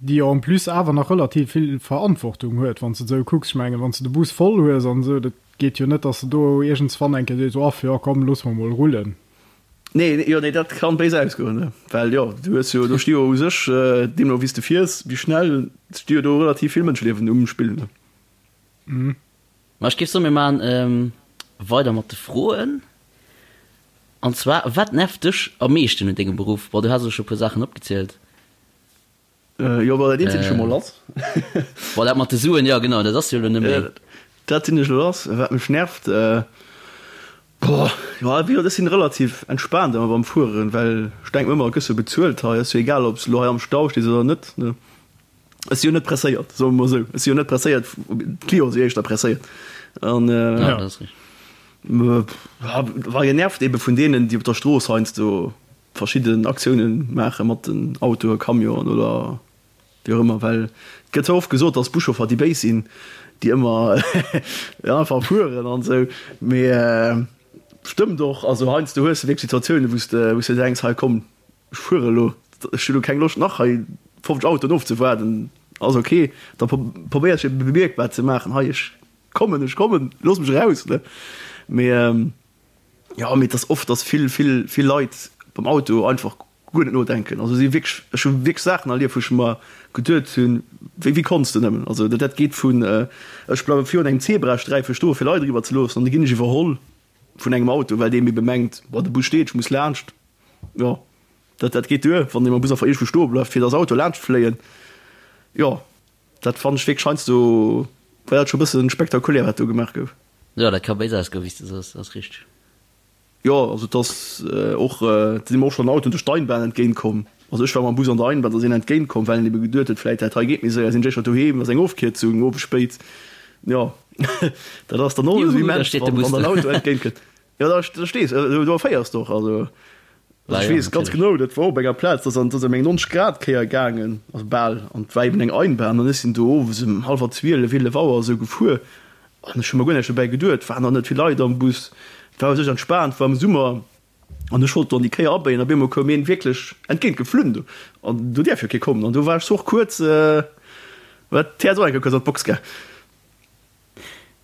Déi jo en plus awer nach relativ vill Verantwortung huet, wann s de et esou kucks. Ech mengen, wann s de de Bus voll hues an esou, dat geet jo net, dass de do iergendswann eng Kéier sees, Off, jo komm, loosse mer mol rullen. Nee, jo, nee, dat kann béis ausgoen, ne? Well jo, du hues jo, do sti jo u sech, deemno wéi s de fiers, wéi schnell, sti jo do relativ vill Mënscheliewen um Spill, ne? Ma ech géif soen, mir maachen weider mat de Froen. An zwar, Wat nervt dech am meeschten un dengem Beruff? Bon, du has elo scho e puer Saachen opgezielt. Jo, bon, dat eent sinn ech jo mol lass. Bon, dat mat de Suen, jo, genau, dat ass jo elo net méi. Dat sinn ech elo lass. Wat mech nervt, boah, jo, wéi gesot, ech sinn relativ entspaant ëmmer beim Fueren, well ech denken mer ëmmer, et gëss jo bezuelt hei, ass jo egal, ob s de elo hei am Stau stees oder net, ne. Ech si jo net presséiert, soe mer mol esou. Ech si jo net presséiert, d'Clienten si éischter presséiert. An, Ja, dat ass richteg. War genervt ebe vun deenen, déi op der Strooss heiansdo verschidden Aktiounen maache mat den Autoe, Camionen oder wéi och ëmmer, well et gëtt zwar oft gesot, datt Buschauffer déi Béis sinn, déi ëmmer einfach fueren an esou, mee stëmmt och. Also heiansdo hues de wierklech Situatiounen, wou s de wou s de denks, hei komm, ech fuere elo, ech hu lo keng Loscht nach hei 50 Autoen ofzewaarden, ass ok. Da probéiers de bemierkbar ze maachen, hei ech kommen, ech kommen, looss mech eraus, ne. Mee Jo, mee et ass oft, dass vill, vill, vill Leit beim Auto einfach guer net nodenken. Also si wierklech, ech hu wierklech Saachen erlieft, wou ech mer geduet hunn, wéi, wéi konns de nëmmen? Also dat geet vun, ech bleiwe virun engem Zebrasträife stoe fir Leit eriwwer ze loossen an da ginn ech iwwerholl vun engem Auto, well dee ebe mengt, boah, de Bus steet, ech muss laanscht. Jo, dat, dat geet duer, wann dee mam Bus einfach iergendwou stoe bleift, fir dass Autoe laanscht fléien. Jo. Dat fannen ech wierklech heiansdo war dat scho bëssen spektakulär wat do gemaach gouf. Jo, dat ka béis ausgoen, wéi s de soos, ass richteg. Jo, also et ass och, et sinn mer och schonn Autoen duerch d'Einbahn entgéint komm. Also ech war mam Bus an der Einbahn, da ass een entgéint komm, well en ebe geduet huet, vläit dat hei geet méi séier, sinn ech éischter doheem, ass eng Ofkierzung, owes spéit. Jo, dat ass dann och esou Juhu, da immens, steet de wann Bus wann do. en Auto entgéint kënnt. Jo, da da stees de, do erféiers de och, also. Also ech weess ganz genau, dat war op enger Plaz, dat ass ëm eng 90 Grad Kéier gaangen, also bal, an et war eben eng Einbahn an ech sinn do owes ëm hallwer 12, 11 Auer esou gefuer an ech hu mer guer näischt dobäi geduet, waren nach net vill Leit am Bus, et war u sech entspaant, war am Summer an ech wollt do an déi Kéier abéien, op eemol koum een wierklech entgéint geflunn do an do däerf jo kee kommen an do war ech och kuerz, war d'Häerz och eng Kéier kuerz an d'Box gaang.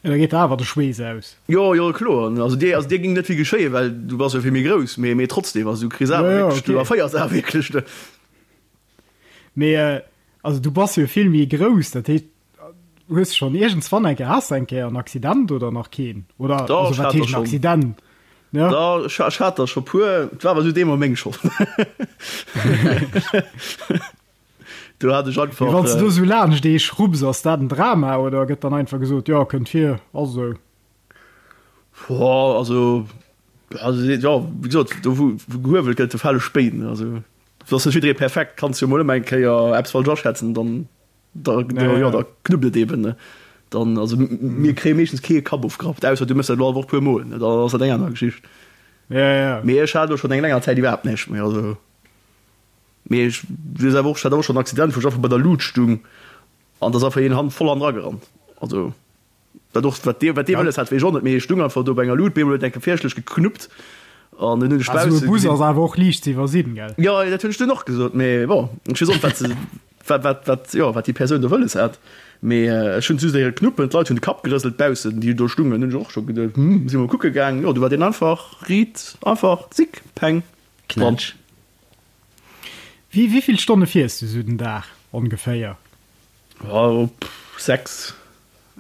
Ja, da geet der awer de Schweess aus. Jo, jo, kloer. Also dir, also dir ging net vill geschéien, well du bass jo vill méi grouss, mee, mee trotzdem, also du kriss awer Ja, ja, wierklech, du okay. erféiers awer wierklech, ne? Mee äh, also du bass jo vill méi grouss, dat heescht, hues schonn iergendswann eng Kéier, has de eng Kéier en Accident oder nach keen? Oder Dach, also ech wat hat der heescht en schonn. Accident? Ja. Dach, ech, ech hat der scho puer, et war awer esou deemol meng Schold. Do hat ech einfach. Mee wann s de do esou laanscht ee schrubs, ass dat en Drama oder gëtt dann einfach gesot, jo, kënnt vir, ass esou? Boah, also, also jo, wéi gesot, do wou gehuewelt gëtt, do fale Spéin. Also et ass net jidderee perfekt, kanns jo mol ëmmer eng Kéier eppes falsch aschätzen, dann da, da, jo, da knuppt et eben, ne. Dann, also mir kréie meeschtens kee Kapp ofgerappt, ausser du méchs dat elo all Woch puer mol, ne, dann ass dat eng aner Geschicht. Mee ech hat elo schonn eng länger Zäit iwwerhaapt näischt méi, also. Mee ech weess awer och, ech hat awer och schonn en Accident, wou ech einfach bei der Luut stung an da ass einfach een han voll hannendra gerannt. Also wat och, wat dee, wat dee wëlles hat, weess ech och net, mee ech stung einfach do bei enger Luut, bemol huet eng Kéier fierchtlech geknuppt an dunn hunn ech Also bausse e Bus gesinn. ass awer och liicht ze iwwersinn, gell? Jo, dat hunn ech dunn och gesot, mee bon, ech weess och net, wat se, wat, wat, wat, jo, wat déi Persoun do wëlles hat. Mee ech hunn just héiere knuppen, d'Leit hunn de Kapp gerëselt baussen, déi do stungen, hunn ech och scho geduet, hm, si mol kucke gaang, jo, du war deen einfach riit, einfach zick, peng, dran. Knätsch. Wéi vill Stonne fiers du sou den Dag ongeféier? Ja, 6,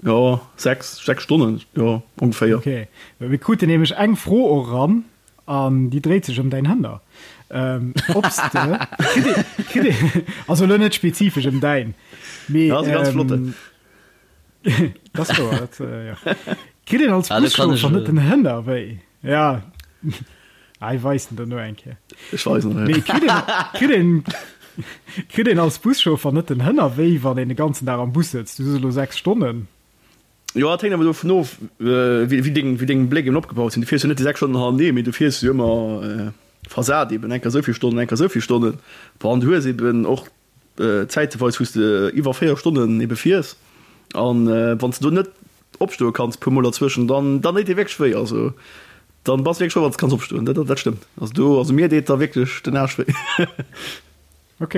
jo 6, 6 Stonnen, jo ongeféier. Ok, well mir kruten nämlech eng Fro och eran an déi dréit sech ëm däin Hënner. Ob s de, kritt ee, kritt ee, also elo net spezifesch ëm däin, mee. Ja, ass e ganz flotten. Dat ass wouer, dat, jo. Kritt een als Ah, do kann ech Buschauffer net elo. den Hënner wéi? Ja. Ah, ich weis den der no eng Kéier. Ech weisen der, ja. Mee kritt een, kritt een, kritt een als Buschauffer net den Hënner wéi, wann een de ganzen Dag am Bus sëtzt? Du sos elo 6 Stonnen. Jo, dat hänkt awer dovun of, wéi, wéi deng, wéi deng Bléck eben opgebaut sinn. Du fiers jo net déi 6 Stonnen hannertenee, mee du fiers jo ëmmer versat eben, eng Kéier esou vill Stonnen, eng Kéier esou vill Stonnen. Bon, an du hues eben och Zäiteweis, wou s de iwwer 4 Stonnen ebe fiers. An wann s de do net opstoe kanns puer mol derzwëschen, dann dann deet dee wierklech wéi. Also dann bass de wierklech frou, wann s de kanns opstoen. Dat dat stëmmt. Also do, also mir deet da wierklech den Aarsch wéi. Ok.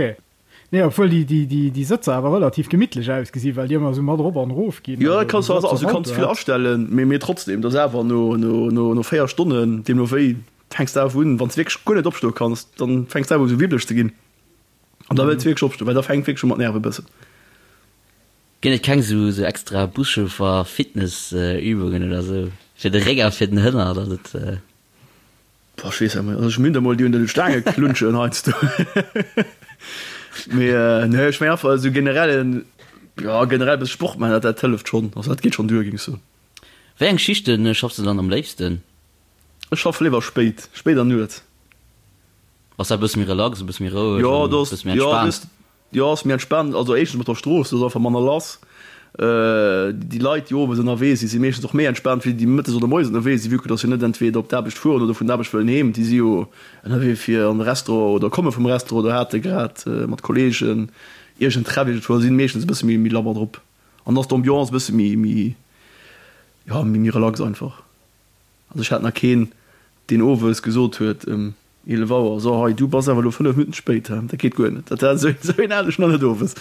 Nee, obwuel déi déi déi déi Sëtzer awer relativ gemittlech ausgesinn, well déi ëmmer esou mat erop an erof ginn. Jo, dat kanns du also du kanns vill astellen, mee mee trotzdem, dat ass awer no no no no 4 Stonnen, deemno wéi, fänks de awer un, wann s de wierklech guer net opstoe kanns, dann fänks de awer u sou wibbeleg ze ginn. An da wëlls de wierklech opstoen, well da fänkt wierklech u mat nerve bëssen. Ginn et keng sou sou extra Buschauffer Fitness Übungen oder sou fir de Réck a fir den Hënner datt et. Boah ech weess net also ech minn der mol déi un de Staange klunschen heiansdo mee nee ech meng einfach esou generellen jo generell bësse Sport maachen dat dat hëlleft schonn also dat geet schonn duer géing ech soen. Wéi eng Schichten schaffs de dann am léifsten? Ech schaffe léiwer spéit, spéit an Nuets. Ass dat e bësse méi relax, e bësse méi roueg Jo an e bësse méi entspaant? Jo, ass méi entspaant. Also éischtens mat der Strooss, do ass einfach manner lass. Déi Leit, déi owes ënnerwee sinn, si meeschtens och méi entspaant wéi déi mëttes oder moies ënnerwee sinn, vue que dass jo net entweder op d'Aarbecht fueren oder vun der Aarbecht wëllen heem. Déi si jo ënnerwee fir an de Restaurant oder komme vum Restaurant oder hate grad mat Kolleegen iergend Treff iergendwou a si meeschtens e bësse méi méi labber drop. An da ass d'Ambiance e bësse méi méi jo méi méi relax einfach. Also ech hat nach keen, deen owes gesot huet ëm 11 Auer, So hei, du bass awer elo 5 Minutten spéit, he, dat geet guer net. Dat war esou een hat ech nach net owes.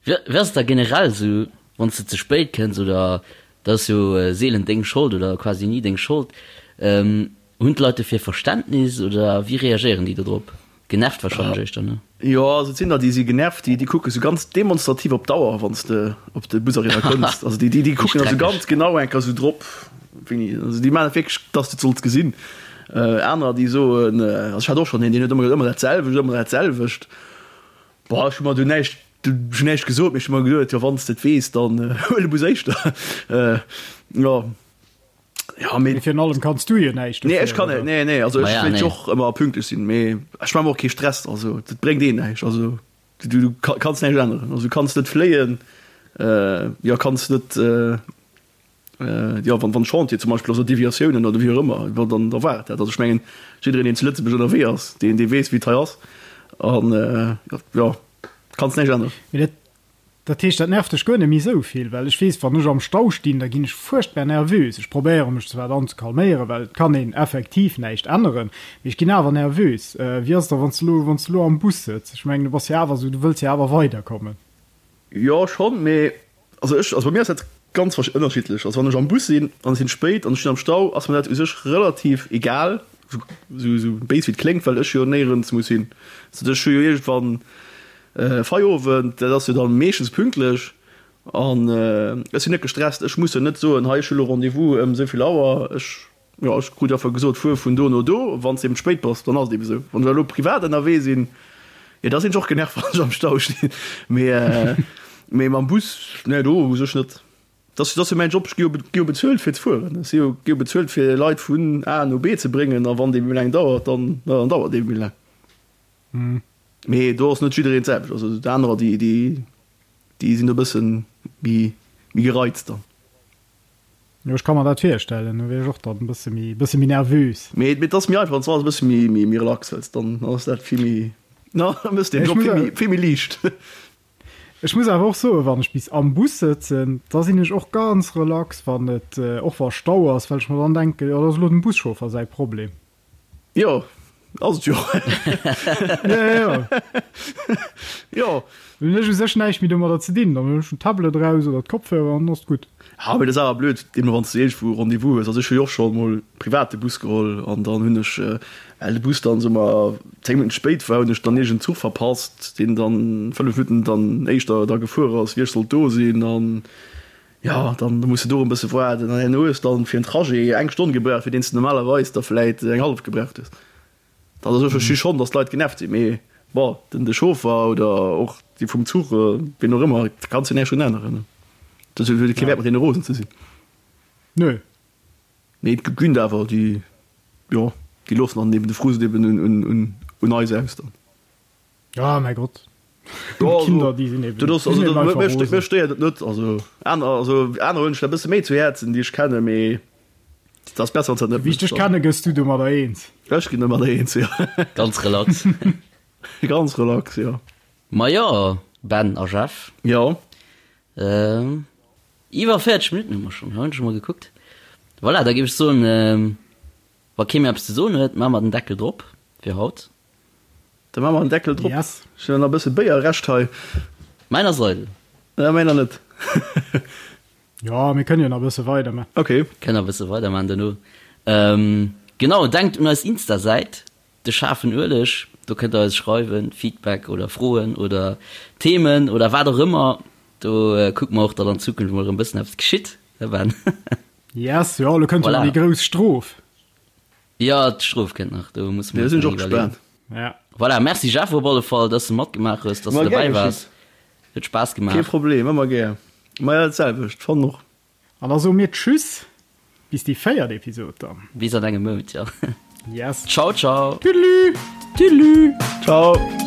Wéi ass et da generell esou, wann s de ze spéit kënns, oder dat ass jo seelen deng Schold oder quasi ni deng Schold, hunn d'Leit dofir Verständnis oder wéi reagéieren déi do drop? Genervt wahrscheinlech éischter, ne? Jo, also et sinn der, déi si genervt, déi, déi kucke sou ganz demonstrativ op d'Auer, wann s de op de Bus eriwwer kënns. Also déi, déi, déi kucken also ganz genau eng Kéier sou drop, wéini, also déi maachen et wierklech, dass de et solls gesinn. Anerer, déi soen, also ech hat och schonn een, deen huet ëmmer gesot, ëmmer dat selwecht, ëmmer dat selwecht. Bon, ech hu mer du näischt, ech hunn näischt gesot, mee ech hu mer geduet, jo, wann s de et weess, dann huel de Bus éischter. Jo. Ja, mee virun allem kanns du jo näischt Nee, ech kann net, nee, nee, also ech wéilt jo och ëmmer pünktlech sinn, mee ech maache mer och kee Stress, also dat bréngt ee näischt, also du, du kanns näischt änneren, also du kanns net fléien, jo kanns net, jo wann wann Chantier zum Beispill ass oder Deviatiounen oder wéi och ëmmer, jo dann da war et dat, also ech mengen jiddereen deen zu Lëtzebuerg ënnerwee ass, deen dee weess wéi et hei ass an jo kanns näischt änneren. Mee dat Dat heescht, dat nervt dech guer net méi esou vill? Well ech weess, wann ech am Stau stinn, da ginn ech fuerchtbar nervös. Ech probéiere mech zwar dann ze calméieren, well et kann een effektiv näischt änneren, mee ech ginn awer nervös. Wéi ass et da, wann s de elo, wann s de elo am Bus sëtz? Ech mengen, du bass jo awer esou, du wëlls jo awer weiderkommen. Jo, schonn, mee also ech, also bei mir ass dat ganz ënnerschiddlech. Also wann ech am Bus sinn an et sinn spéit an ech stinn am Stau, ass mir dat u sech relativ egal, esou, esou béis wéi et kléngt, well ech jo néierens muss hin. Also ech hu jo iergendwann Feierowend, dat ass jo dann meeschtens pünktlech an ech sinn net gestresst. Ech muss jo net soen, hei ech hu lo Rendez-vous ëm esou vill Auer. Ech, jo, ech krut einfach gesot, fuer vun do no do. Wann s de eben spéit bass, dann ass et eben esou. Wann ech elo privat ënnerwee sinn, jo da sinn ech och genervt, wann ech am Stau stinn. Mee, mee mam Bus, nee do u sech net. Dat ass jo mäin Job, ech gi jo bezuelt fir ze fueren. Ech si jo gi jo bezuelt fir Leit vun A no B ze bréngen a wann dee méi laang dauert, dann, dann dauert dee méi laang. Mee do ass net jiddereen d'selwecht. Also déi anerer, déi, déi, déi sinn e bëssen méi, méi gereizt dann. Jo, ech ka mer dat virstellen. Do wier ech och dann e bësse méi, bësse méi nervös. Mee, mee et ass méi einfach, wann s du alles e bësse méi, méi, méi relax hëls, dann ass dat vill méi, na, da méchs de den Job vill méi, vill méi liicht. Ech muss awer och soen, wann ech bis am Bus sëtzen, da sinn ech och ganz relax, wann et, och wa Stau ass, well ech mer dann denken, jo, dat ass elo dem Buschauffer säi Problem. Jo, ass et jo. Ja, ja. Jo. Dann hunn ech u sech näischt méi domadder ze dinn. Dann hunn ech den Tablet eraus oder d'Kopfhörer an dann ass et gutt. Ja, mee dat ass awer blöd, deemno wann s de iergendwou Rendez-vous hues. Also ech hu jo och scho mol privat de Bus geholl an dann hunn ech, well de Bus dann, soe mer, 10 Minutten spéit war, hunn ech dann iergend Zuch verpasst, deen dann 5 Minutten dann éischter da gefuer ass, wéi ech sollt do sinn. An Jo, dann muss de do e bësse waarden an herno hues dann fir en Trajet eng Stonn gebraucht, fir deen s de normalerweis der vläit eng hallef gebraucht hues. Dat ass, ech versti schonn, datt d'Leit genervt sinn, mee bon, den de Chauffer oder och déi vum Zuch, wien och ëmmer, da kanns de näischt drun änneren. Dat huet kee Wäert mat deene rosen ze sinn. Nö. Mee et ginn der awer, déi, jo. Déi loossen dann eben de Frust eben un eis aus dann. Ja, mäi Gott. D'Kinder, déi sinn eben, déi sinn eben einfach rosen. Mech stéiert et net. Also aner, also aner huelen sech dat e bësse méi zu Häerzen, déi ech kennen, mee et ass besser, wann s dat net Wéi ech dech kenne, gëss du domadder eens. Ech ginn domadder eens, jo. Ganz relax. Ganz relax, jo. Majo, Ben a Jeff. Jo. Iwwer 40 Minutten hu mer schonn, hunn ech emol gekuckt. Voilà, da géif ech soen, wa kee méi eppes ze soen huet, maache mer den Deckel drop fir haut. Da maache mer den Deckel drop. Yes. Ech hunn nach e bësse Béier Rescht hei. Mäin ass eidel. Ja, mäiner net. Jo, mir kënnen jo nach e bësse weiderman. Ok. Kënnen nach e bësse weiderman duerno. Genau, denkt un eis Insta-Säit, De schaarfen Ueleg. Do kënnt der eis schreiwen, Feedback oder Froen oder Themen oder wat och ëmmer. Do kucke mer och, datt an Zukunft mol erëm e bëssen eppes geschitt, hè Ben? Yes, jo, elo kënnt jo nach Voilà. déi grouss Strof. Jo, d'Strof kënnt nach, do musse mer Jo, eis sinn ech nach och iwwerleeën. gespaant. Ja. Voilà, merci Jeff op alle Fall, dass de matgemaach hues, dass Ma de gär dobäi waars. geschitt. Huet Spaass Kee gemaach. Problem, ëmmer gär. Ma jo, dat selwecht, fannen och. An da soe mir Tschüss bis déi véiert Episod dann. Bis an engem Mount, jo. Yes. Ciao, ciao. Tüdelü. Tüdelü. Ciao.